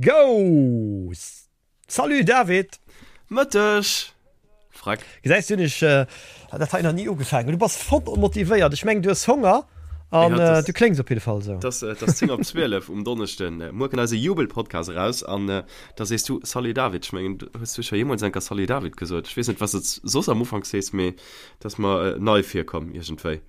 Go! Salut David! Mëtteg! Freck. Gesäis du, hunn ech dat hei nach ni ugefaangen. Du bass voll motivéiert. Ech mengen, du hues Honger an du kléngs op jidde Fall esou. Et ass 10 op 12 um Donneschden. Muer kënnt eise Jubel-Podcast eraus an da sees du Salut David. Ech mengen, hues du scho jeemools eng Kéier Salut David gesot? Ech weess net, wat s de soss am Ufank sees, mee dat ass mer nei virkomm iergendwéi.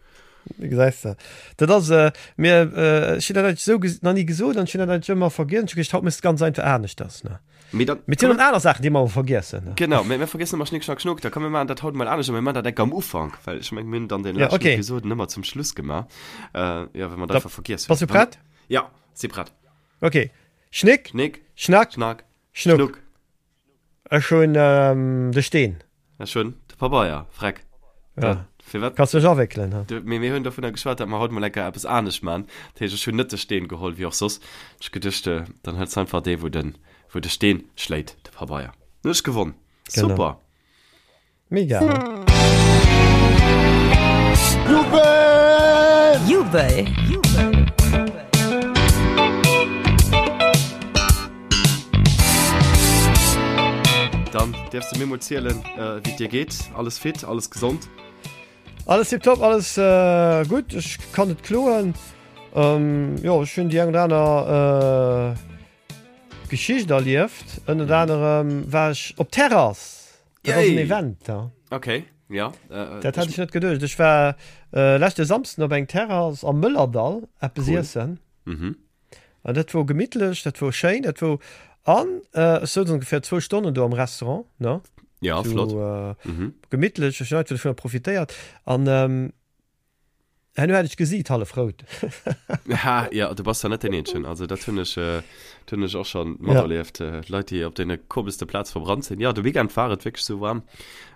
Gesäis de, dat ass mir, ech hunn dat eigentlech esou nach ni gesot an ech hunn dat eigentlech ëmmer vergiess. Ech hu geduecht, haut méchs de ganz einfach aneschters, ne? Mee dann, Mee et sinn och aner Saachen, déi mer awer vergiessen, ne? Genau, mä mir vergiessen ëmmer Schnick, Schnack, Schnuck. Da komm mir maachen dat haut emol anescht a mir maachen dat enk am Ufank, well ech mengen, mir hunn dann dee Ja, leschten okay. Episoden ëmmer zum Schluss gemaach, jo, well mer dat Da einfach vergiess bass hunn. du prett? Ja, si prett. Okay. Schnick, Schnick, Schnack, Schnack, Schnuck. Schnuck. Ech hunn de Steen. Ech hunn de Pabeier, Freck. Ja. Firwat? Kanns dech awéckelen, ha? Du, mee mir hunn dovunner geschwat, datt mer haut mol enker eppes anescht man. Dat heescht, ech hunn net de Steen geholl, wéi och soss. Ech geduecht, dann hëls einfach dee, wou de, wou de Steen schléit, de Pabeier. Dann hunn ech gewonn. Genau. Super! Mega, ha? Jubel! Jubel! Dann däerfs de mir mol zielen, wéi et dir geet. Alles fit, alles gesond? Alles tiptop, alles gutt. Ech kann net kloen. Jo, ech hunn déi eng oder aner Geschicht erlieft. Ënnert anerem war ech op Terrass. Dat ass en Event da. Okay, ja. Dat hat ech net geduecht. Ech war leschte Samsden op eng Terrass am Mëllerdall eppes iessen. Mhm. An dat wor gemittlech, dat wor schéin, dat wor an ech souz ongeféier zwou Stonnen do am Restaurant, ne? Ja, flott. Sou gemittlech, ech hunn einfach dovunner profitéiert an herno hat ech d'Gesiit hallef rout. Ha, ja, du bass da net deen Eenzegen. Also dat hunn ech, dat hunn ech och schonn materlieft. Leit, déi op deene komeschste Plaz verbrannt sinn. Ja, de Weekend war et wierklech sou waarm.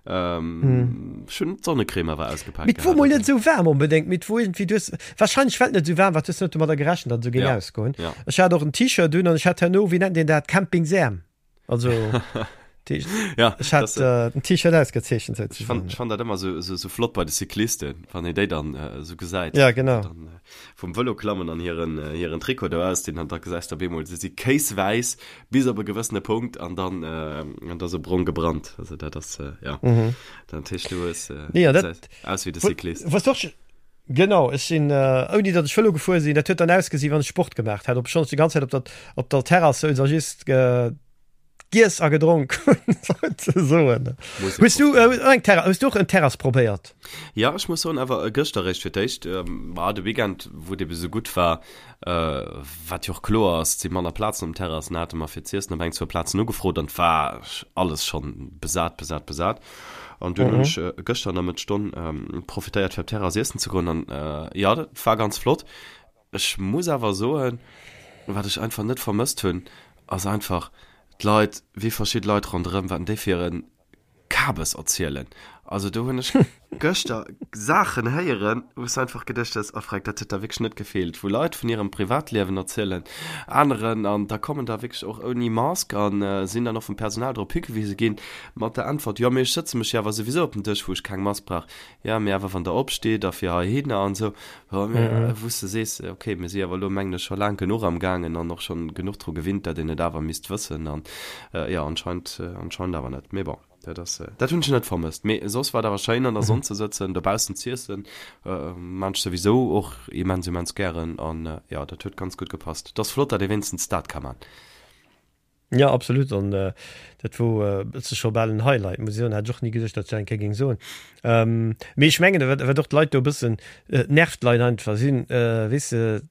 Ähm, ech hunn d'Sonnecrème awer ausgepaakt Mee 't wor gehat, mol net also. esou waarm onbedéngt, mee 't wor iergendwéi, du hues wahrscheinlech well et net esou waarm war, du hues net domadder gerechent, datt et esou géing Ja, ausgoen. ja. Ech hat och en T-Shirt un an ech hat herno, wéi nennt een dat, Campingsäerm. Also déi, Ja, ech hat das, äh, den T-Shirt ausgezeechent ech souzesoen. fann, ech fann dat ëmmer esou, esou, esou flott bei de Cyclisten, wann een déi dann äh, esou gesäit. Ja, genau. Dann äh, vum Vëlo klammen an hiren, äh, hiren Trikot do ausdinn an da gesäis de op eemol, se si kéiswäiss Bis op e gewëssene Punkt an dann an da sou brong gebrannt. Also dat ass ja dat heescht du hues Nee, an dat aus wéi de Cyclist. Was doch genau ech sinn ouni datt ech Vëlo gefuer sinn, dat huet dann ausgesinn wann ech Sport gemaach hätt, obschonn ech déi ganz Zäit op der op der Terrass souz a just giess a gedronk hunn souzesoen. Hues du eng Terrass, hues du och en Terrass probéiert? Ja ech muss soen awer gëschter eréischt fir d'éischt, ma de Weekend wou et ebe sou gutt war, Wat jo och kloer ass, et si manner Plazen um Terrassen, hate mer fir z'iessen op eng, zwou Plazen ugefrot an et war alles schonn besat, besat, besat. An dunn hunn ech gëschter an der Mëttesstonn profitéiert fir op d'Terrass iessen ze goen an jo, dat war ganz flott. Ech muss awer soen, wat ech einfach net vermësst hunn, ass einfach d'Leit, wéi verschidde Leit ronderëm, wat déi fir en Kabes erzielen. Also do hunn ech gëschter Saachen héieren, wou s de einfach geduecht hues, oh Freck, dat huet der wierklech net gefeelt. Wou Leit vun hirem Privatliewen erzielen, aneren, an da kommen der wierklech och ouni Mask a sinn dann och vum Personal drop higewise ginn, mat der Äntwert, jo mee ech sëtze mech jo awer souwisou op den Dësch, wou ech keng Mask brauch. Jo mee awer wann der opsteet a fir heihinner an esou, jo mee wou s de sees, okay, mir si awer elo mengen ech scho laang genuch am gaangen an och schonn genuch dru gewinnt, dat een et awer misst wëssen an jo anscheinend, anscheinend awer net. Mee bon, dat ass, dat hunn ech net vermësst. Mee soss war et awer schéin an der Sonn ze sëtzen, dobaussen z'iessen, maan ech souwisou och immens, immens gären an jo, dat huet ganz gutt gepasst. Et ass flott, dat ee wéinstens dat ka man. Jo, absolut. An dat wor e bësse scho bal en Highlight, muss ech soen. Hat ech och ni geduecht, datt ech dat eng Kéier géing soen. Mee ech mengen, wat wat och d'Leit do e bëssen, et nervt d'Leit einfach sinn, weess de,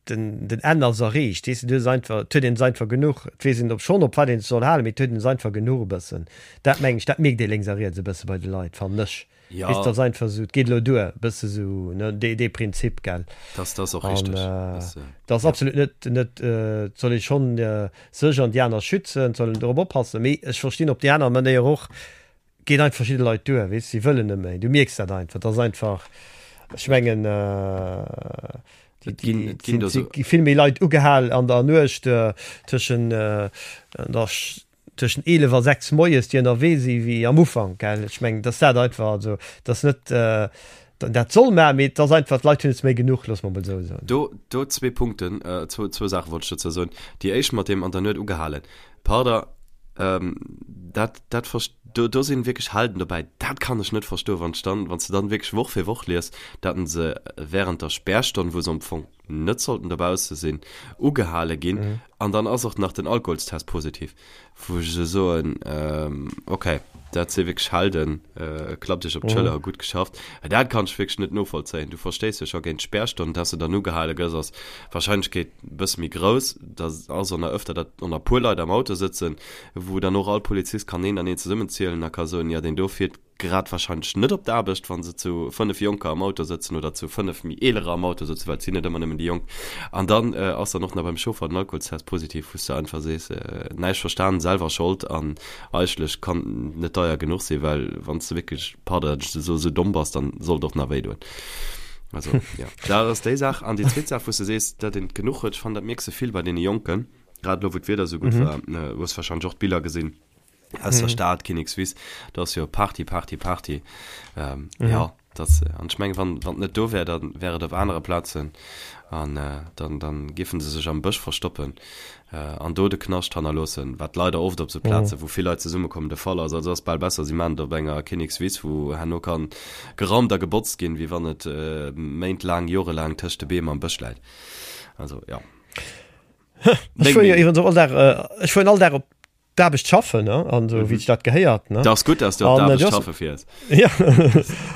den den Enn ass erreecht, weess de, du hues einfach, et huet een es einfach genuch. Et weess een op schonn, op wat een sech soll halen, mee et huet een es einfach genuch e bëssen. Dat mengen ech, dat mierkt ee lénks a riets e bësse bei de Leit, fannen ech. Ja. Weess, dat ass einfach esou, et geet elo duer, e bësse sou, ne, dee, dee Prinzip, gell. Dat, dat ass och richteg. An Dat, dat ass ja. absolut net, net, et soll ee schonn sech an déi aner schützen, et soll een dorop oppassen, mee ech verstinn op déi aner Manéier och, geet einfach verschidde Leit duer, weess, si wëllen net méi, du mierks dat einfach, dat ass einfach, ech mengen, Et ginn, et ginn do si sou. gi vill méi Leit ugehal an der Nuecht tëschen, an der tëschent 11 a 6 moies, déi ënnerwee si wéi am Ufank, gell. Ech mengen, dass dat einfach, also dass net. dat soll maachen, mee et ass einfach, d'Leit hunn es méi genuch, loosse mer emol esou soen. Do, do zwee Punkten, zwou, zwou Saache wollt ech dozou soen. Déi éischt mat deem an der Nuet ugehalen. Pardon, dat, dat verst-, do, do sinn wierklech Helden dobäi, dat kann ech net verstoen, wann ech dann, wann s de dann wierklech Woch fir Woch lies, datt se während der Spärstonn, wou se am Fong net sollten dobausse sinn, ugehale ginn an dann ass och nach den Alkoholstest positiv, wou ech esou soen, okay, dat si wierklech Helden, klappt iech op d'Schëller, gutt geschafft. Dat kann ech wierklech net novollzéien. Du verstéiss jo scho géint d'Spärstonn, dass de dann ugehale gëss, ass d'Warscheinlechkeet e bësse méi grouss. Da ass och nach ëfter, datt och nach e puer Leit am Auto sëtzen, wou dann och all Polizist kann een an een zesummenzielen a ka soen, jo deen do fiert grad wahrscheinlech net op d'Aarbecht, wa se zu 5 Jonker am Auto sëtzen oder zu 5 méi Eelerer am Auto sëtzen, well et sinn net ëmmer nëmmen déi Jonk. An dann ass dann och nach beim Chauffer den Alkoholstest positiv, wou s de einfach sees, näischt verstan, selwer Schold an eigentlech kann net deier genuch sinn, well wann s de wierklech, pardon, datt ech esou esou domm bass, dann soll et och nach wéidoen. Also jo, dat ass déi Saach. An déi zweet Saach, wou s de sees, datt een et genuch huet, ech fannen, dat mierks de vill bei deene Jonken, grad elo wou d'Wieder esou gutt war, hues wahrscheinlech och d'Biller gesinn, aus der mhm. Stad Kinnekswiss da ass jo Party Party Party ähm, mhm. ja das an ech meng wann wann net do wär dann wär et op anere Plazen an äh, dann dann giffen se sech am Bësch verstoppen äh, an do de Knascht hannerloossen wat leider oft op sou Plaze mhm. wou vill Leit zesummekommen de Fall ass also ass bal besser si man op enger Kinnekswiss wou herno kann geraumt a gebotzt ginn wéi wann et äh, méintlaang jorelaang tëscht de Beem am Bësch läit also ja Ech fuer jo iwwregens och all Dag, äh, ech fueren all Dag op d'Aarbecht schaffen ne an so mhm. wéi dat gehéiert ne das gut dass du an, äh, schaffe fiers ja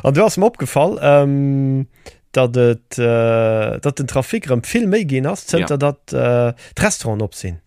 an du hast mir opgefall ähm, dat et äh, dat den Trafik rëm vill méi ginn ass zënter ja. dat äh, d'Restauranten op sinn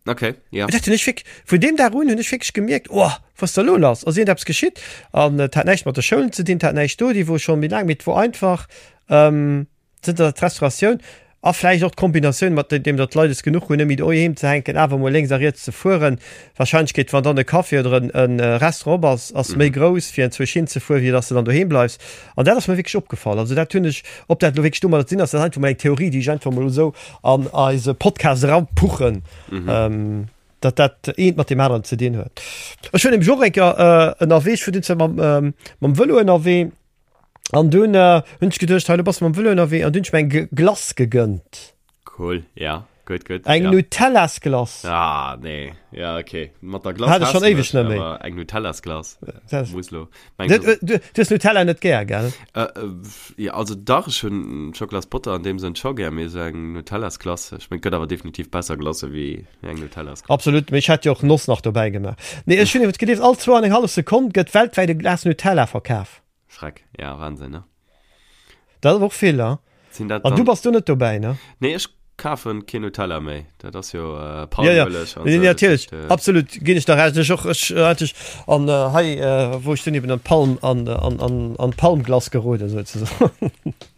okay ja dat hunn ech fik vun dem Dag un hunn ech wierklech gemierkt oh was da lo lass ass irgendeppes geschitt an et hat näischt mat de Schoulen ze dinn hat näischt do déi wor schon méi laang mee et wor einfach ähm, Zënter datt d'Restauratioun, a vläicht och d'Kombinatioun mat deem datt d'Leit es genuch hunn, net méi doheem ze hänken, awer emol lénks a riets ze fueren, d'Warscheinlechkeet, wann dann e Café oder e Restaurant op ass, ass méi grouss, fir enzwousch hinzefueren, wéi datt s de dann doheem bleifs. An dat ass mir wierklech opgefall. Also dat hunn ech, ob dat elo wierklech domadder ze dinn ass, dat ass einfach mol eng Theorie, déi ech einfach mol esou an eise Podcast erapuchen, datt dat eent mat deem aneren ze dinn huet. Ech war nämlech och eng Kéier ënnerwee, ech war dunn zwar mam Vëlo ënnerwee, An dunn äh, hunn ech geduecht, hei, lo bass du mam Vëlo ënnerwee, an dunn hunn ech mir eng Glace gegënnt. Cool, ja, gutt, gutt. Eng ja. Nutellas-Glace. Ah, nee, ja, okay. Mat der Glace Hat ech schon éiweg net méi. Awer eng Nutellas-Glace Das- muss lo. Meng, Du, du, du hues Nutella net gär, gell? Äh, äh, ja, also dach, ech hunn Schokolasbotter an deem Sënn scho gär, mee esou eng Nutellas-Glace, ech meng, et gëtt awer definitiv besser Glacë wéi eng Nutellas-Glace. Absolut, mee ech hätt jo och Noss nach dobäi gemaach. Nee, ech hunn iwwert gelies, all zwou an eng hallef Sekonn gëtt weltwäit e Glas Nutella verkaf. Schreck, ja, Wahnsinn, ne? Dat ass och vill, ne? Sinn dat An du bass do net dobäi, ne? Nee, ech kafen keen Nutella méi. Dat ass jo äh, Palmueleg ja, ja. Nee, natierlech, äh, absolut, ginn ech der Recht. Ech och, ech äh, hat ech an äh, hei, äh, wou ech dunn eben an d'Palm, an, an, an, an d'Palmglass geroden, souzesoen.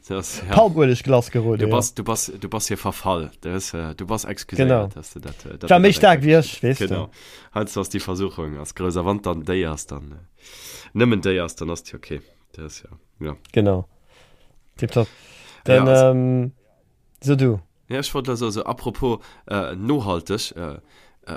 Das, ja. Palmueleglass geroden, Du bass, du bass, du bass hier verfall. Du, hues, äh, du bass excuséiert, genau. dass du dat, äh, dat War méi staark wéi ech, weess du. Genau. Heiansdo ass déi Versuchung ass grouss. A wann dann déi ass, dann. Äh, Nëmmen déi ass, dann ass déi okay. Dat ass ja, ja. Genau. Tipptopp. Dann, ja, also, ähm, so du. Ja, ech wollt also, also apropos äh, nohalteg, äh, äh,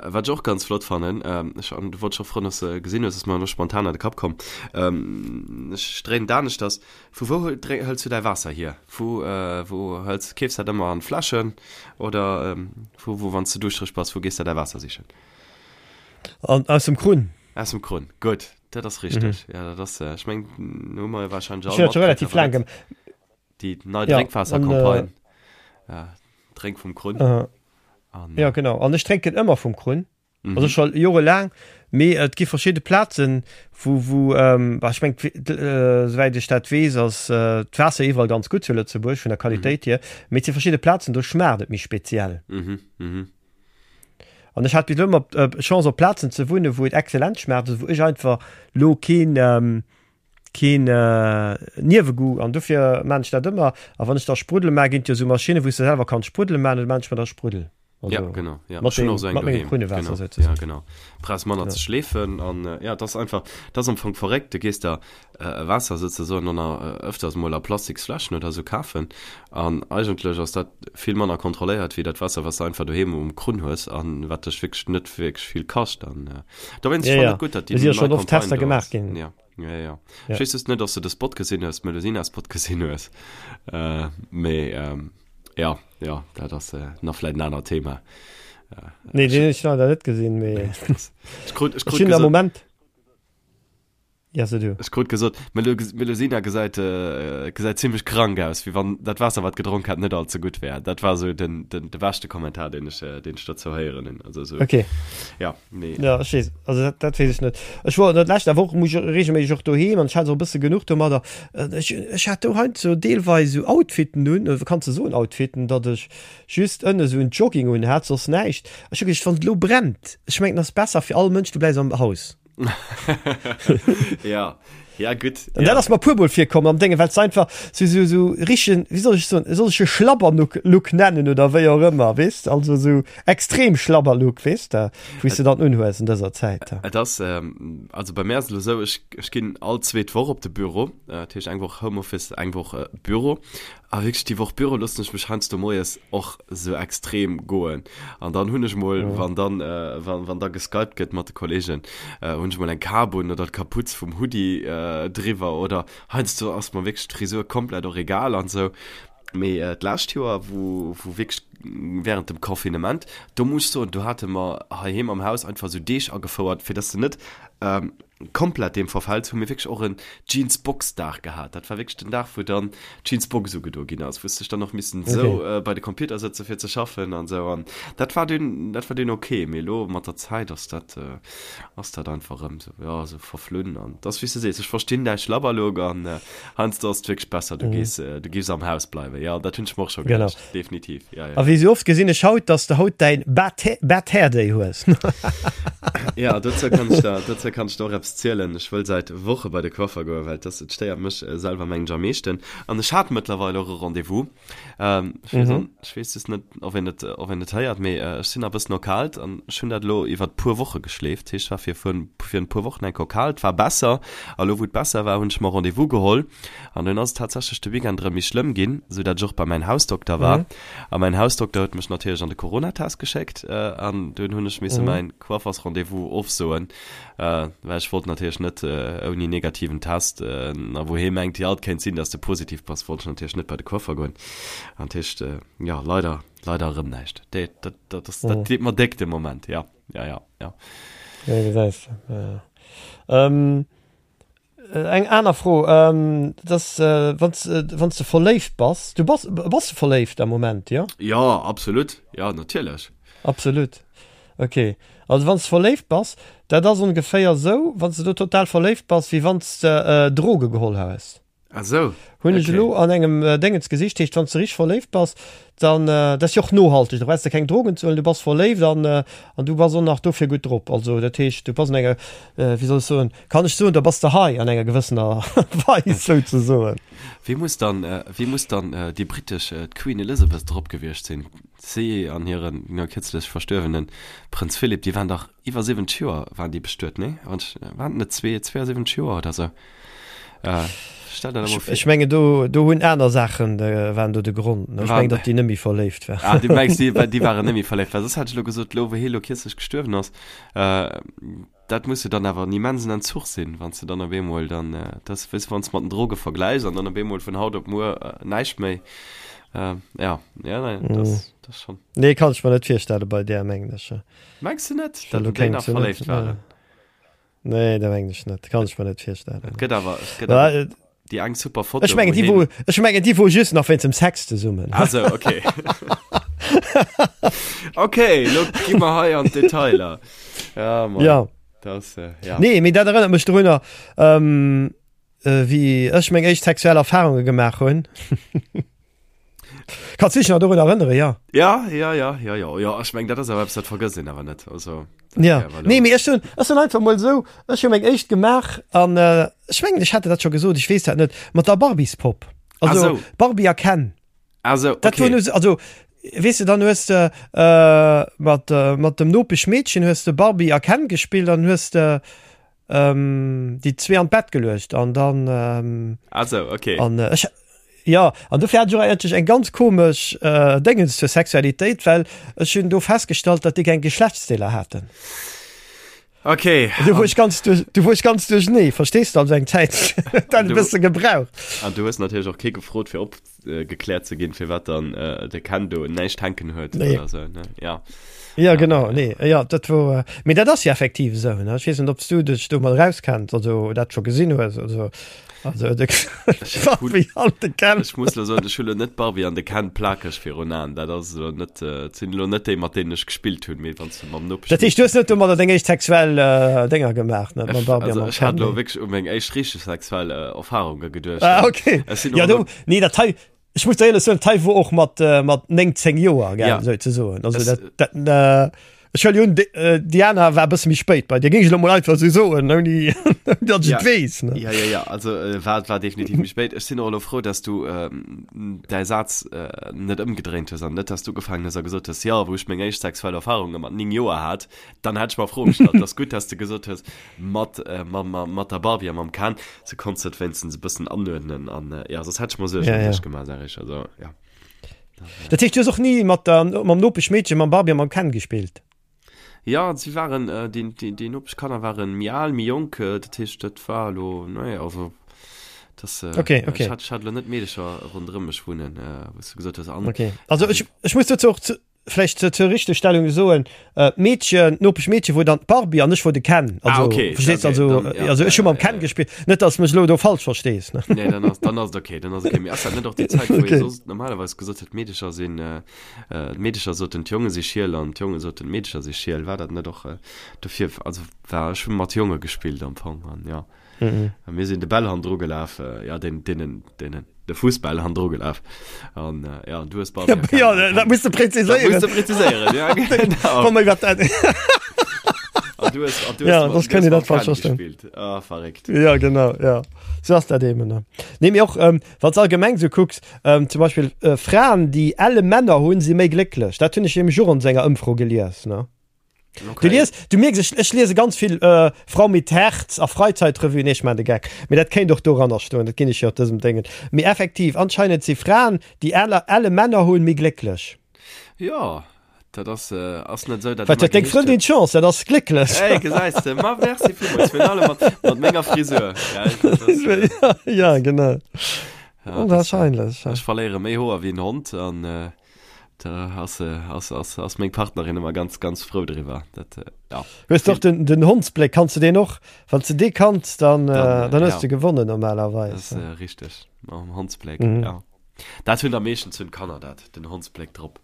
wat ech och ganz flott fannen, äh, ech an, du wollt scho froen, dass du gesinn hues, ass mer elo spontan an de Kapp komm. Ähm, ech dréinen d'aneschters. Vu wou hëls du däi Waasser hier? Vu äh, wou hëls, keefs dat ëmmer an Fläschen oder ähm, vu wou, wann s du duuschtereg bass, wou gees de däi Waasser sichen? An, aus dem Krunn. Aus dem Krunn, gutt, dat ass richteg. Mhm. Ja, dat ass, äh, ech meng, hu mer jo wahrscheinlech all schon relativ laang gem Déi nei ja, Drénkwaassercampagne. Äh, ja, Drénk vum Krunn. Äh, an, ja, genau. An ech drénken ëmmer vum Krunn. Mhm. Also schon jorelaang. Mee et gi verschidde Plazen, wou, wou ähm, ech meng, äh, souwäit ech dat weess, ass äh, d'Waasser iwwerall ganz gutt zu Lëtzebuerg vun der Qualitéit mhm. hier. Mee et si verschidde Plazen, do schmaacht et méi speziell. Mhm. Mhm. An ech hat bis elo ëmmer d'Chance op Plazen ze wunnen, wou et excellent schmaacht, also wou ech einfach lo keen keen Niewegoût an dofir maan ech dat ëmmer. A wann ech da Spruddel maan, ginn et jo esou Maschinnen, wou s de selwer kanns Spruddel maan, an da maan ech mer da Spruddel. Also, ja, genau. Ja. Mat dem, so mat mengem Krunnewaasser genau. sozusagen. Ja, genau. Brauchst manner ja. ze schleefen an äh, ja, das einfach das am Anfang verréckt. Du gehst da äh, Wasser sozusagen an äh, öfters mal a Plastiksfläschen oder so kafen an eigentlech ass dat vill manner kontrolléiert wéi dat Wasser, was du einfach doheem um Krunn hues an wat dech wierklech net wierklech vill kascht an äh, dowéinst ja, fand ja. et gutt, dat déi si ja schon oft Tester gemaach ginn. Ja. Ja, ja. Ja. Ech weess just net, ob du de Spot gesinn hues, Melusina-Spot gesinn hues. Äh, mee ähm, ja, ja, dat ass äh, nach vläit en anert Thema. Äh, nee, den ech leider net gesinn, mee ech krut, ech ech krut hunn am gesot, Moment. Ja, so du. ech krut gesot, Melu Melusina gesäit, äh, gesäit zimmlech krank aus, wéi wann dat Waasser, wat gedronk hat, net all ze gutt wär. Dat war sou den, den, de beschte Kommentar, deen ech, äh, deen ech dozou héieren hunn. Also sou, Okay. ja. Nee. Ja, ech weess, also dat, dat weess ech net. Ech wor dat lescht Woch muss ech regelméisseg och doheem an ech hat och e bësse genuch domadder. Ech, ech hat do heiansdo deelweis esou Outfiten un, oder kanns de soen Outfiten, datt ech just ënne esou en Jogging un hat, soss näischt. Ech hu geduecht, wann et elo brennt, ech mengen, et ass besser fir all Mënsch, du bleiws am Haus. Ja, ja gutt. An dat ass mer puermol virkomm am Déngen, well s einfach sou, sou, sou richtegen, wéi soll ech soen, soll ech e Schlabberlook Look nennen oder wéi och ëmmer, weess de, also sou extrem Schlabberlook, weess de, wou s de dann unhues an dëser Zäit. Et ass, also bei mär ass et elo sou, ech, ech ginn all zweet Woch op de Büro, dat heescht eng Woch Homeoffice, eng Woch Büro. A wierklech déi Woch Büro loossen ech mech heiansdo moies och sou extrem goen. An dann hunn ech mol, wann dann, wann, wann da geskypt gëtt mat de Kollegen, hunn ech mol eng Kap un oder d'Kaputz vum Hoodie driwwer oder heiansdo ass mer wierklech d'Frisur komplett och egal an sou. Mee d'lescht Joer, wou, wou wierklech während dem Confinement, do muss ech soen, do hate mer heiheem am Haus einfach sou Deeg agefouert, fir dass de net komplett deem verfäls, hu mir wierklech och en Jeans-Box-Dag gehat. Dat war wierklech den Dag, wou dann d'Jeans-Box ugedo ginn ass, wou s dech dann och missen esou okay. bei de Computer sëtze fir ze schaffen an esou. An dat war dunn, dat war dunn okay. Mee elo mat der Zäit ass dat, ass dat einfach erëm esou, jo, esou verflunn. An et ass wéi s de sees, ech verstinn däi Schlabberlook an heiansdo ass et wierklech besser, du gees, du giffs am Haus bleiwen. Jo, dat hunn ech mer och scho geduecht. Definitiv, ja, ja. A wéi sou oft gesinn ech haut, dass de haut däin Bad Hair Day hues. Ja, dozou kann ech der, dozou kann ech der och eppes zielen. Ech wëll säit Woche bei de Coiffer goen, well dass, et stéiert mech selwer mengen ech am meeschten. An ech hat mëttlerweil och e Rendez-vous. Ähm, ech weess, mhm. ech weess just net, ob een et, ob een et héiert, mee ech sinn a bëssen erkalt an ech hunn dat elo iwwert puer Woche geschleeft. Heescht, war fir vun, fir en puer Wochen enk erkalt, war besser. A lo wou et besser war, hunn ech mer Rendez-vous geholl. An dunn ass et tatsächlech de Weekend erëm méi schlëmm ginn, sou dat ech och bei mäin Hausdokter war. Mhm. A mäin Hausdokter huet mech natierlech an de Coronatest geschéckt. Äh, an dunn hunn ech misse mhm. mäin Coiffersrendez-vous ofsoen, äh, well ech wollt natierlech net äh, ouni negativen Test, äh, a wou hee mengt, ja, et kéint sinn, dass de positiv bass, wollt ech natierlech net bei de Coiffer goen. An dat heescht, äh, ja, leider, leider erëm näischt. Dat, dat, dat, dat, dat deet mer déck de Moment, ja, ja, ja, ja. Ja, gesäis de. Ja. Ähm, Eng aner Fro, dass wann s wann s de verléift bass, du bass, bass de verléift am Moment, jo? Jo, absolut, jo natierlech. Absolut, ok. Also wann s de verléift bass, dat ass ongeféier esou, wann s de do total verléift bass, wéi wann s de Droge geholl hues. Ah sou, Hunn ech ok. elo an engem Déngens gesicht. Heescht, wann s de richteg verléift bass, dann, dat ass jo och nohalteg, da brauchs de keng Drogen ze huelen, du bass verléift an an du bass och nach dofir gutt drop. Also dat heescht, du bass an enger, wéi soll ech soen, kann ech soen, da bass de high an enger gewëssener Weis souzesoen. Wéi muss dann, wéi muss dann déi britesch, d'Queen Elizabeth drop gewiescht sinn? Si an hiren no kierzlech verstuerwene Prënz Philip, déi waren dach iwwer 70 Joer waren déi bestuet, nee? Wann ech, waren et net 72 Joer oder sou? Äh, stell der dat emol vir. Ech mengen do, do hunn aner Saachen waren do de Grond, ne? Ech mengen, datt déi net méi verléift waren. Ah, du mengs, déi, déi waren net méi verléift, well soss hätt ech elo gesot, elo wou hie elo kierzlech gestuerwen ass, äh, dat muss jo dann awer en immensen Entzuch sinn, wann s de dann op eemol dann, dat ass, weess de, wann s de mat den Droge vergläichs an dann op eemol vun haut op muer näischt méi, äh, ja, ja, nee, dat ass, dat ass schonn. Nee, kann ech mer net virstelle bei där, mengen ech. Mengs de net, datt déi nach verléift waren? Nee, dat mengen ech net. Kann ech mer net virstellen. Et gëtt awer, et gëtt awer déi eng super Foto. Ech mengen, déi wou, ech mengen, déi wou just nach wéinst dem Sex zesummen. Ah sou, okay. Okay, lo gi mer hei an d'Detailer. Ja, Mann. Ja. Das, äh, ja. Nee, mee dat erënnert mech drunner, ähm, äh, wéi ech meng éischt sexuell Erfahrunge gemaach hunn. Kanns du dech nach dorun erënnere, ja? Ja, ja, ja, ja, ja, ja, ech meng, dat ass awer eppes, dat vergësst een awer net. Also, dat Ja, wär awer elo- nee, mee ech hunn, ech hunn einfach mol esou, ech hu meng éischt gemaach an äh, ech mengen, ech hat der dat scho gesot, ech weess dat net, mat der Barbiespopp. Ah, Also sou. Barbie a Ken. Ah, sou, Dat okay. wor nu, also. Weess de, dann hues de mat, mat dem Nopeschmeedchen hues de Barbie a Ken gespillt an hues de déi zwee an d'Bett geluecht an dann. Ah sou, okay. An ech, jo, an dofir hat ech och eigentlech eng ganz komesch Déngens zur Sexualitéit, well ech hunn do festgestallt, datt déi keng Geschlechtsdeeler haten. Okay. Du wor ech ganz duerch, du wor ech ganz duerchenee, verstees du, also eng Zäit huet dat e bësse gebraucht. An du hues natierlech och kee gefrot fir opgekläert ze ginn, firwat dann de Ken do näischt hänken huet Nee. oder sou, ne? Ja. Ja, genau, nee, ja, dat wor, mee dat ass jo effektiv esou, ne? Ech weess net, ob s du dech domat erauskenns, also dat scho gesinn hues, also. Also, de Barbie an de Ken. Ech muss lo soen, ech hu lo net d'Barbie an de Ken plakeg virun Aen. Dat ass elo net, et sinn elo net déi, mat deenen ech gespillt hunn, mee wann s de mam Nopesch. Dat heescht, du hues net domadder deng éischt sexuell Dénger gemaach, ne? Mam Barbie a mam Ken? Also, ech hat elo wierklech u meng éischt richteg sexuell Erfarunge geduecht. Ah, okay. Ech sinn och Ja, elo. do, nee, dat hei, ech muss der éierlech soen, dat hei wor och mat, mat 9, 10 Joer, gell, Ja. souzesoen. Also, Es, dat, dat, Ech huele un, déi aner war e bësse méi spéit bei dir, géing ech elo mol einfach esou soen, ouni datt ech Ja. et weess, ne? Ja, ja, ja, also äh, war, war definitiv méi spéit. Ech sinn och elo frou, dass du ähm, däi Saz äh, net ëmgedréint hues an net, dass du ugefaangen hues a gesot hues, jo, wou ech meng éischt sexuell Erfarunge mat 9 Joer hat, dann hätt ech mer Froe gestallt. Ass gutt, dass du gesot hues, mat, äh, mam, mam, mat der Barbie a mam Ken, sou konns du et wéinstens e bëssen anuerdnen an äh, ja, soss hätt ech mer Suergen Ja, ëm ja. dech gemaach, sag ech, also ja. Dat heescht, du hues och ni mat der, mam Nopeschmeedchen, mam Barbie a mam Ken gespillt? Ja, si waren, äh, déi, déi, déi Nopeschkanner waren méi al, méi jonk, äh, dat heescht, dat war elo, nee, also, das, äh, Okay, okay. ech hat, ech hat elo net Meedecher ronderëm mech wunnen, äh, wou s du gesot hues, an, Okay. Also ech, ech muss dozou och zu, vläicht zur, zur Richtegstellung soen, äh, d'Meedchen, d'Nopeschmeedche wor dann d'Barbie an ech wor de Ken. Ah, Also, okay, verstees okay, also, dann, ja, also ech hu ja, mam ja, Ken ja. gespillt, net dass mech elo do falsch verstees, ne? Nee, dann ass, dann ass et okay, dann ass okay. Mee ass dat net och déi Zäit, wou ee Okay. soss normalerweis gesot huet, d'Meedecher sinn, äh, äh, d'Meedecher soten, d'Jonge si schiel an d'Jonge soten, d'Meedecher si schiel. War dat net och, äh, dofir, also war, ech hu mat Jonge gespillt am Fong an ja. Mhm. A mir sinn de Bäll hannendru gelaf, äh, ja, den, deenen, deenen, de Fussbäll hannendru gelaf. An äh, ja, du hues Barbie Ja, erkannt. ja, dat muss de Dat muss präziséieren. de präziséieren, ja, genau. Wann mer iwwer dat. An du hues, an du hues, Ja, mat- das du kënnt hues Dir mam dat falsch Ken verstoen. gespillt. Ah, verréckt. Ja, genau, ja. So ass dat eben. Ne? Nee, mee och, ähm, wann s allgemeng so kucks, ähm, zum Beispill äh, Fraen, déi elle Männer hunn, si méi glécklech. Dat hunn ech nämlech och an senger Ëmfro gelies, ne? Okay. Du lies, du mierks, ech, ech liese ganz vill äh, Frau mit Herz a Freizeitrevue, nee, ech maan de Geck. Mee dat kéint och doranner stoen, dat ginn ech jo op dësem Déngen. Mee effektiv, anscheinend si Fraen, déi elle, elle Männer hunn, méi glécklech. Ja, dat ass, äh, ass net esou, dat Wat ëmmer huet deng geheescht Frëndin huet. d'Chance, dat ass glécklech. Ey, gesäis de, ma merci villmools, virun allem mat, mat menger Frisur. Gell, dat ass, äh, ja, genau. ja, das, äh, Onwahrscheinlech. ech verléiere méi Hoer wéi en Hond an, äh, Da ass, ass, ass, ass meng Partnerin ëmmer ganz, ganz frou driwwer. Dat, ja. Hues de och den, den Hondsbléck, kanns de deen och? Wann s de dee kanns, dann, Dann, dann hues ja. de gewonnen normalerweis. Das ist äh, richtig. Mam Hondsbléck, Mhm. ja. Dat hunn da meeschtens hunn d'Kanner dat, den Hondsbléck drop.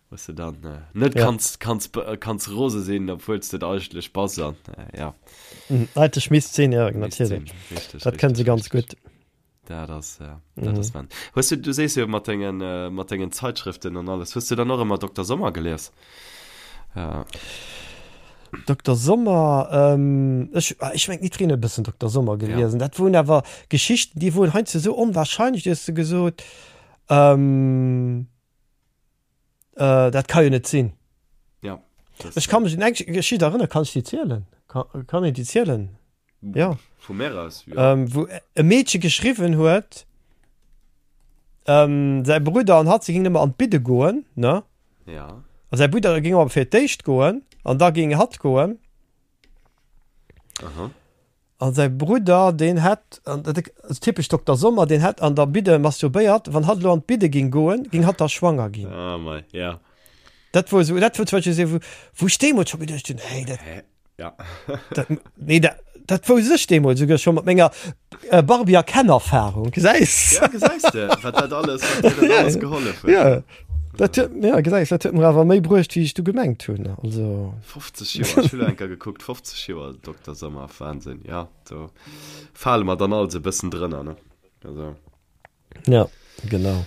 Wou s de dann äh, net Ja. kanns, kanns, äh, kanns rose sinn, obwuel s de et eigentlech bass an, äh, ja. Mhm. Eigentlech misst sinn, ja, Misst natierlech. sinn. Richtig, Dat kënne se richtig, ganz richtig. gutt. Dat ass, äh, dat ass mhm. Hues du, du sees jo mat dengen, äh, mat dengen Zeitschriften an alles. Hues du dann och ëmmer Dr. Sommer gelies? Äh. Dr. Sommer, ähm, ech, ah, ech meng d'Nitrine e bëssen Dr. Sommer geliesen. Ja. Dat woen awer Geschichten, déi woen heiansdo sou onwahrscheinlech, du hues du gesot, ähm, äh, dat ka jo net sinn. Ja. Ech kann mech un eng Geschicht erënnern, kann ech déi zielen? Kann, kann een déi zielen? Ja. Vu mär aus, ja. Ähm, wou e Meedche geschriwwen huet, ähm, säi Brudder an hatt, se gingen ëmmer an d'Bidde goen, ne? Ja. A säi Brudder géing awer fir d'éischt goen, an da géing hatt goen. Aha. An säi Brudder, deen hätt, an dat ass typesch Dokter Sommer, deen hätt an der Bidde masturbéiert, wann hatt elo an d'Bidde géing goen, géing hatt da schwanger ginn. Ah, mei, ja. Dat wor esou, dat wor zum Beispill esou, wou, wou ech deemools scho geduecht hunn, hey, dat, Hä? Ja. Dat, nee, dat, dat wousst ech deemools souguer scho mat menger äh, Barbie a Ken-Erfahrung. Gesäis? Ja, gesäis de, wat dat alles, wat dir dat alles gehollef huet. Ja, dat huet, ja, gesäis, dat huet mer awer méi bruecht, wéi ech du gemengt hunn. Also. 50 Joer, ech hu lo eng Kéier gekuckt, 50 Joer Dokter Sommer, Wahnsinn, ja, do fale mer dann alles e bëssen drënner, ne? Also. Ja, genau.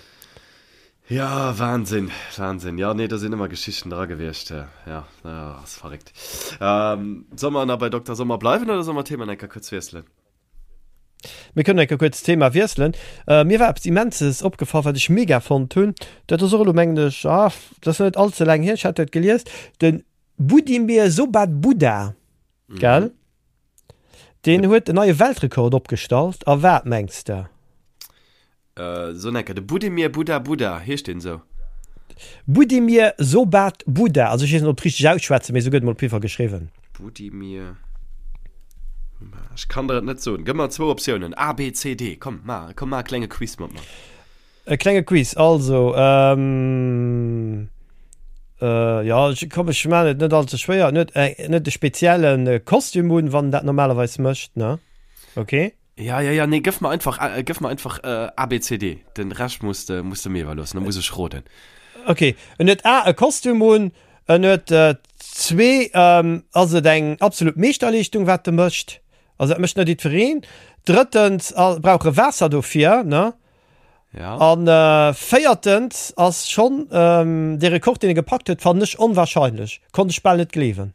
Ja, Wahnsinn, Wahnsinn. Ja, nee, do sinn ëmmer Geschichten dra gewiescht. Ja, ass verréckt. Ähm, soll mer nach bei Dokter Sommer bleiwen oder soll mer d'Thema eng Kéier kuerz wiesselen? Mir kënnen enke kuerz d'Thema wiesselen. Mir war eppes Immenses opgefall, wat ech mega fonnt hunn. Dat ass och elo, mengen ech, ah, dat ass net all ze laang hier, ech hat dat gelies, de Budimir Sobat Buda, gell? Deen huet en neie Weltrekord opgestallt. A wat mengs de? So enker, de Budimir Buda Buda, heescht deen esou? Budimir Sobat Buda, also ech weess net ob et richteg ausschwätzen, mee esou gëtt et mol op jidde Fall geschriwwen. Budimir, ech kann der et net soen. Gëff mer zwou Optiounen, A, B, C, D, komm ma, komm ma e klenge Quiz mat mer. E klenge Quiz, also, jo, ech, komm ech maan et net all ze schwéier, en huet en huet e spezielle Kostüm un, wann en dat normalerweis mécht, ne? Ok. Ja, ja, ja, nee, gëff mer einfach, äh, gëff mer einfach äh, A, B, C, D. Den Rescht muss de, muss de mir iwwerloossen, da muss ech roden. Okay, en huet A, e Kostüm un, en huet äh, zwee, ähm, ass et eng absolut Meeschterleeschtung, wat e mécht, also dat mécht net jiddwereen. Drëttens a, brauch e Waasser dofir, ne? Ja. An äh, véiertens ass schonn ähm, dee Rekord, deen e gepackt huet, fannen ech onwahrscheinlech, konnt ech bal net gleewen.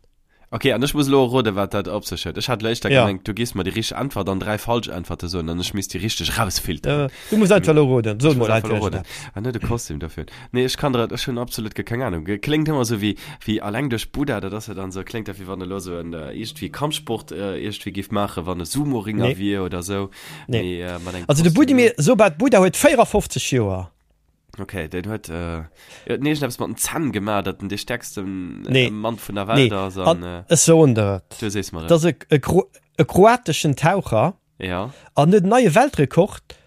Ok, an ech muss elo roden, wat dat op sech huet. Ech hat elo éischter ja. gemengt, du giss mer déi richteg Äntwert an 3 falsch Äntwerte soen an ech misst déi richteg rausfilteren. Äh, du muss einfach elo roden. So mol einfach roden. An net e Kostüm dofir. Nee, ech kann der, ech hunn absolut ge keng Ahnung. Kléngt ëmmer sou wéi, wéi alleng duerch Buddha, dat ass jo dann sou, kléngt dat wéi wann e lo sou en äh, iergendwéi Kampfsport äh, iergendwéi giff maachen, wann e Sumo-Ringer nee. wier oder sou. Nee. Mee, äh, mat engem Also de Budimir Sobat Buddha huet 54 Joer. Okay, den huet äh, huet iergendeppes mat den Zänn gemaach, datt en dee stäerksten äh, Nee. Mann vun der Welt Nee. ass an äh, Ech soen der et. du sees mer Et ass e, e, Kro e kroateschen Taucher Ja. an huet en neie Weltrekord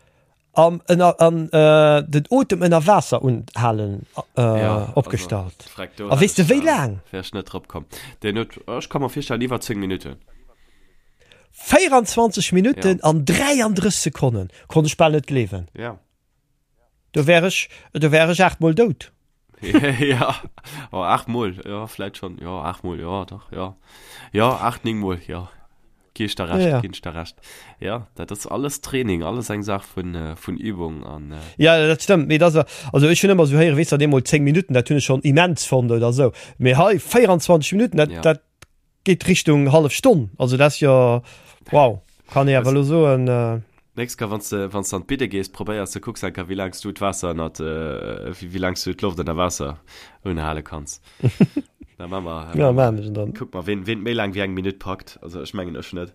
am ënner an äh, den Otem ënner Waasser unhalen äh, Ja, opgestallt. Also, freck, do A weess de wéi laang? Wär ech net drop komm. Den huet, ech ka mer virstellen, iwwer 10 Minutten. 24 Minutten Ja. an 33 Sekonnen. Konnt ech bal net gleewen. Ja. Do wär ech, do wär ech 8 mol dout. ja, oh, 8 mol, ja, vläit schon, ja, 8 mol, ja, dach, ja. Ja, 8, 9 mol, ja. Gi ech der recht, ja, ja. ginn ech der recht. Ja, dat ass alles Training, alles eng Saach vun, äh, vun Übung an. Äh ja, dat stëmmt, mee dat ass, also ech hunn ëmmer esou héieren, weess de, eemol 10 Minutten, dat hunn ech schonn immens fonnt oder esou. Mee hei 24 Minutten, dat, ja. dat Geet Richtung hallef Stonn, also dat ass jo wow, kann ee awer elo soen. Nächst Kéier wanns de wanns de an d'Bidde gees, probéiers de kucks enker wéi laangs du d'Waasser ënnert wéi laangs du d'Loft ënner Waasser unhale kanns. Da maa mer Ja maan ech dann. Kuck mer ween ween méi laang wéi eng Minutt packt, also ech mengen ech net.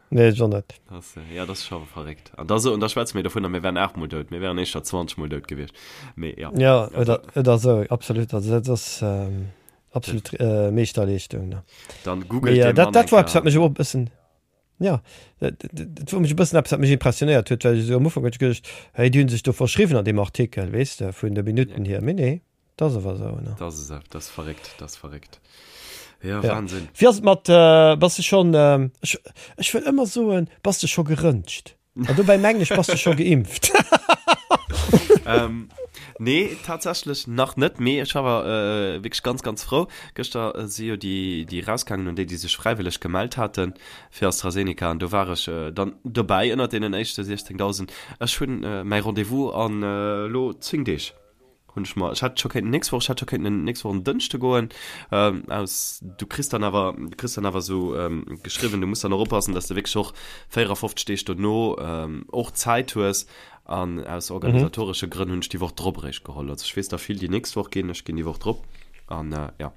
Nee ech och net. Das, ja dat ass scho verréckt. An da so an da schwätze mir dovunner mir wären 8 mol dout, mir wären éischter 20 mol dout gewiescht. Mee ja. Ja oder oder sou, absolut, also dat ass. Absolut äh, Meeschterleeschtung. Ne? Dann googelt ja, dat, dat war etwas, wat mech och bëssen ja dat, dat war mech e bëssen eppes, wat mech impressionéiert huet, well ech esou am Ufank huet ech geduecht, hey, déi hunn sech do verschriwwen an deem Artikel, weess de, vun de Minutten ja. hier. Mee nee, dat ass awer esou. Ne? Dat ass esou, dat ass verréckt, dat ass verréckt. Ja, ja. Wahnsinn. Wéi ass et mat, äh, bass de schonn, äh, ech, ech wëll ëmmer soen, bass de scho gerëntscht? An dobäi mengen ech, bass de scho geimpft? ähm, nee, tatsächlech nach net, mee ech war äh, wierklech ganz, ganz frou. Gëschter äh, si jo déi, déi rausgaangen un déi, déi sech fräiwëlleg gemellt haten fir AstraZeneca an do war ech äh, dann dobäi ënnert deenen éischte 16.000. Ech hunn äh, mäi Rendez-vous an äh, lo 10 Deeg. Hunn ech mer, ech hätt scho kéinten nächst Woch, ech hätt scho kéinten nächst Woch en Dënschde goen, ähm, aus, du kriss dann awer, du kriss dann awer esou ähm, geschriwwen, du muss dann och oppassen, dass de wierklech och 54 Deeg dono ähm, och Zäit hues an aus organisatoresche Grënn hunn ech déi Woch drop eréischt geholl. Also ech weess der vill, déi nächst Woch ginn, ech ginn déi Woch drop an äh, ja.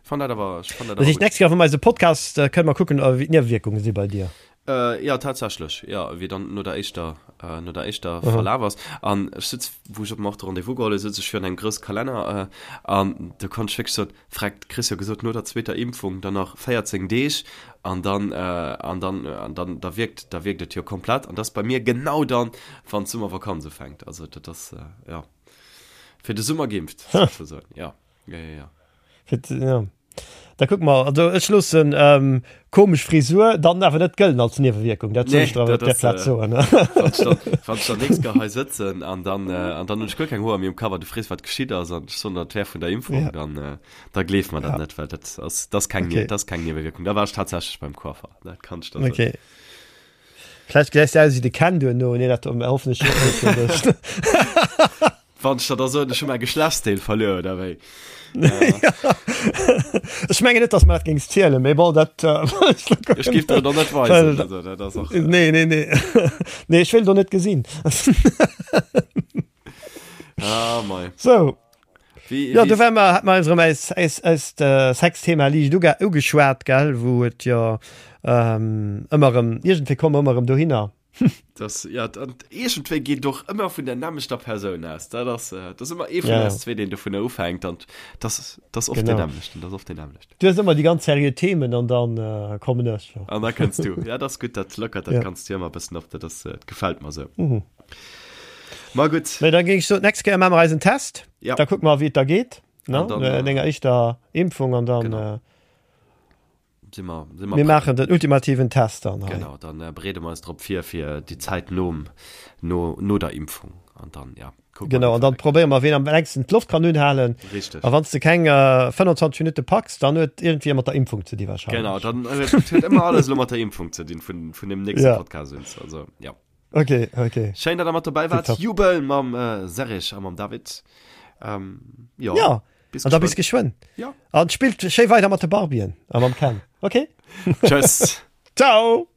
Fand dat awer, ech fand dat awer gutt. Nächst Kéier, wa mer eise Podcast, äh, kënne mer kucken, wéi d'Niewewierkunge si bei dir. Äh, ja, tatsächlech, ja, wéi dann no der éischter, äh, no der éischter mhm. Verlaf ass. An ech sitz, wou ech op dem och de Rendez-vous geholl hunn, sitz ech virun engem grousse Kalenner, äh, an do konnt ech wierklech soen, Freck, kriss jo gesot, no der zweeter Impfung dann nach 14 Deeg an dann, äh, an dann, an dann, da wierkt, da wierkt et jo komplett. An dat ass bei mir genau dann, wann d'Summervakanz ufänkt. Also dat ass, äh, ja, fir de Summer geimpft, sozesoen, ja. Ja, ja, ja. Fir, ja. Da kuck mer, also ech loossen ähm, komesch Frisur dann awer net gëllen als Niewewierkung. Dat soll Nee, ech der awer dat op der ass, Plaz äh, soen. wann ech dann, wann ech dann nächst Kéier hei sëtzen an dann, äh, an dann hunn ech guer keng Hoer méi um Kapp an du frees, wat geschitt ass an ech soen der, et wär vun der Impfung, Ja. dann, äh, da gleef mer dat Ja. net, well dat ass, dat ass keng, Okay. dat ass keng Niewewierkung. Da war ech tatsächlech beim Coiffer, dat kann ech der soen. Okay. Vläicht gesäis de aus wéi de Ken duerno. Nee, dat hoffen ech net fir dech. Wann ech der da soen, ech hu mäi Geschlechtsdeel verluer, oder wéi? Ech mengen net, dass mer dat géings zielen, mee bon, dat. Ech géif der et och net weisen, also dat ass och. Nee, nee, nee. Nee, ech wéilt och net gesinn. Ah, mei. Sou. Wéi, Ja, wéi do war mer, hat mer eis erëm eis, eis, eist Sexthema liicht uge, ugeschwat, gell, wou et jo ëmmer erëm, iergendwéi komme mer ëmmer erëm dohinner. Das, ja, an iergendwéi geet och ëmmer vun der nämmlechter Persoun aus. Dat ass, dat ass ëmmer ee vun Ja. eis zwee, deen dovunner ufänkt an das, das oft Genau. den nämmlechten, das oft den nämmlechten. Du hues ëmmer déi ganz seriö Themen an dann äh, kommen ech. Jo. An da kënns du. Ja, das ass gutt, dat lockert, dat Ja. kanns du ëmmer e bëssen op, dat ass, dat gefält mer sou. Mhm. Ma gutt. Mee da géing ech soen, d'nächst Kéier maache mer eisen Test. Ja. Da kucke mer, wéi et da geet, ne? An dann, No äh, denger éischter Impfung an dann. Genau. Äh, Si mer, si mer Mir maachen den ultimativen Test dann hei. Genau, dann äh, bereede mer eis drop vir fir déi Zäit nom, no, no der Impfung. An dann, ja, kucke mer, Genau, an dann probéiere mer, ween am längsten d'Loft kann unhalen. Richteg. A wann s de keng äh, 25 Minutte packs, dann huet iergendwéi mat der Impfung ze di wahrscheinlech. Genau, dann huet, huet ëmmer alles elo mat der Impfung ze dinn vun, vun dem nächste Ja. Podcast un. Also, ja. Okay, okay. Schéin, datt der mat dobäi waart. Tipptopp. Jubel mam äh, Serge a mam David. Ähm, jo. Ja, Bis an da bis geschwënn. Ja. An spillt schéi weider mat de Barbien a mam Ken. Okay? Tschëss. Ciao.